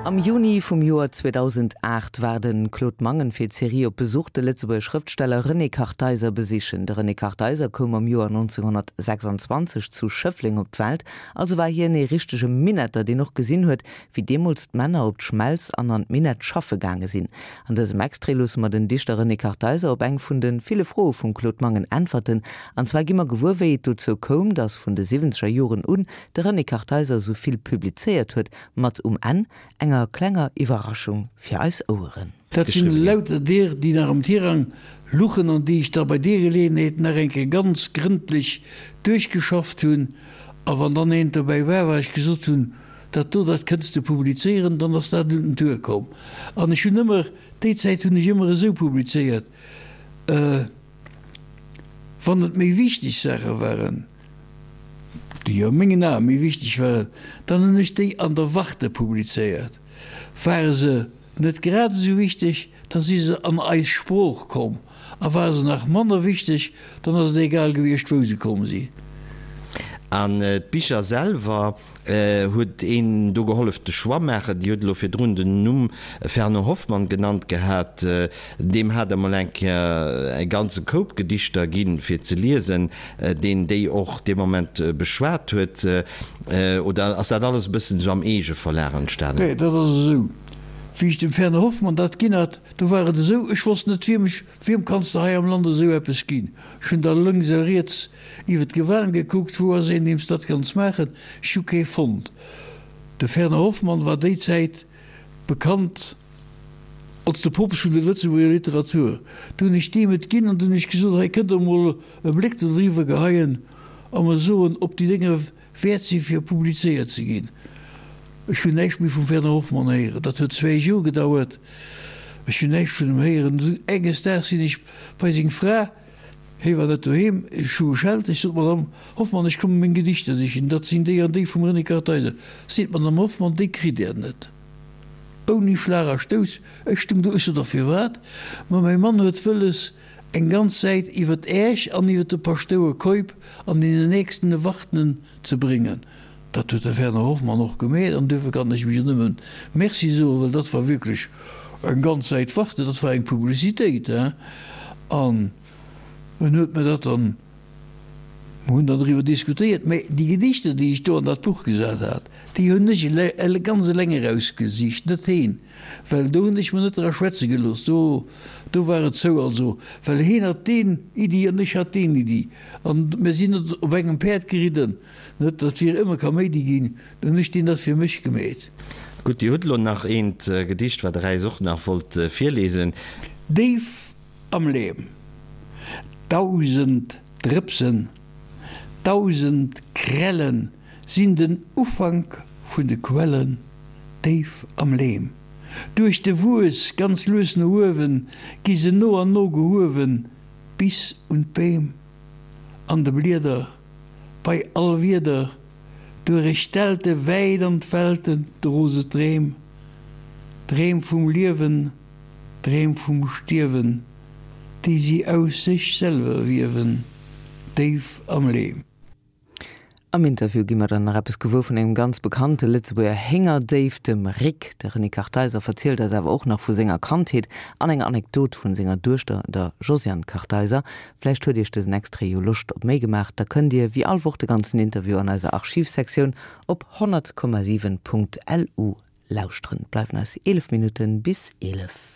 Am Juni vum Joer 2008 war de Claude Mangen fir d'Serie op Besuch de Lëtzebuerger Schrëftsteller René Kartheiser besichen. De René Kartheiser koum am Joer 1926 zu Schëffleng op d'Welt, also war hien ee richtege Minetter, deen och gesinn huet, wéi deemools d'Männer op d'Schmelz an an d'Minett schaffe gaange sinn. An dësem Extrait loosse mer den Dichter René Kartheiser op eng vun de ville Froe vum Claude Mangen äntwerten. An zwar gi mer gewuer, wéi et dozou koum, datt vun de siwwenzeger Joren un de René Kartheiser esou vill publizéiert huet, mat um Enn enger klenger Iwwerraschung fir eis Oueren. Dat sinn lauter deer, déi nach am Tirang luchen an déi ech da bei deer Geleeënheet nach eng Kéier ganz grëndlech duerchgeschafft hunn. A wann dann eent dobäi war, wat ech gesot hunn, Dat do, dat kënns de publizéieren, dann ass dat un den Tour komm. An ech hunn ëmmer, déi Zäit hunn ech ëmmer esou publizéiert, wann et méi wichteg Saache waren, déi a mengen Ae méi wichteg waren, dann hunn ech déi an der Warte publizéiert. Ware se net grad esou wichteg, da si se an Eis Sprooch komm, a ware se nach manner wichteg, dann ass et egal gewiescht, wou se komm sinn. An d'Bicher selwer, huet een do gehollef de Choix maachen? Dir hutt elo virdrun den Numm Fernand Hoffmann genannt gehat. Deem hat Der mol eng Kéier e ganze Koup Gedichter ginn, fir ze liesen, deen déi och dee Moment beschwat huet. Oder ass dat alles e bëssen esou am Eegeverlag entstanen? Nee, dat ass esou, wéi ech dem Fernand Hoffmann dat ginn hat, do war et esou, ech wosst net, wiem ech, wiem kanns de hei am Land esou eppes ginn? Ech hunn da lënks a riets iwwer d'Gewan gekuckt, wou ass een, deem s dat kanns maachen? Ech hu kee fonnt. De Fernand Hoffmann war déi Zäit bekannt als de Poopst vun der Lëtzebuerger Literatur. Du hunn ech deem et ginn an du hunn ech gesot, hei kënnt der emol e Bléck dodriwwer geheien a mer soen, ob déi Dénger wäert sinn, fir publizéiert ze ginn. Ech hunn näischt méi vum Werner Hoffmann héieren. Dat huet zwéi Joer gedauert. Ech hunn näischt vun em héieren. Enges Daags sinn ech bei seng Fra, hie war net doheem, ech hu geschellt. Ech sot, Madame Hoffmann, ech komme meng Gedichter sichen, dat sinn déi an déi vum René Kartheiser. Seet d'Madame Hoffmann, déi kritt Der net. Ouni Schlag a Stouss. Ech stung do, ech sot, A firwat? Ma mäi Mann huet wëlles, eng ganz Säit iwwer Äech an iwwer de Paschtouer Keup an deenen nächsten Ewartenen ze bréngen. Dat huet de Werner Hoffmann och gemeet an duerfir kann ech em jo nëmmen Merci soen, well dat war wierklech eng ganz Säit Warte, dat war eng Publicitéit, hein. An en huet mir dat dann, mer hunn dann driwwer diskutéiert, mä déi Gedichter, déi ech do an dat Buch gesat hat, déi hunn ech ganz eleng erausgesicht, net heen. Well do hunn ech mer net dra schwätze gelooss, do, do war et zou. Also, well heen hat deen Iddi an ech hat deen Iddi an mir sinn net op engem Päerd geridden, net datt wier ëmmer Kaméidi ginn, do hunn ech deen dat fir mech gemeet. Gutt, Dir hutt elo nach eent Gedicht, wat Der äis och nach wollt virlesen. Déif am Leem, 1000 Drëpsen, 1000 Krellen sinn den Ufank vun de Quellen. Déif am Leem. Duerch de Wues ganz lues no uewen, gi se no an no gehuewen, bis un d'Beem. An de Blieder, bei all Wieder, duerech d'Delte wäit an d'Welten dro se d'Dreem. Dreem vum Liewen, Dreem vum Stierwen, déi si aus sech selwer wiewen, déif am Leem. Am Interview gi mer dann nach eppes gewuer vun engem ganz bekannte Lëtzebuerger Héngerdéif, dem Rick. De René Kartheiser verzielt eis awer och nach vu senger Kandheet an enger Anekdot vun senger Duechter, der Josiane Kartheiser. Vläicht huet iech dësen Extrait jo Loscht op méi gemaach? Da kënnt dir wéi all Woch de ganzen Interview an eiser Archivsektioun op 100,7.lu lauschteren. Et bleiwen eis 11 Minutten bis 11.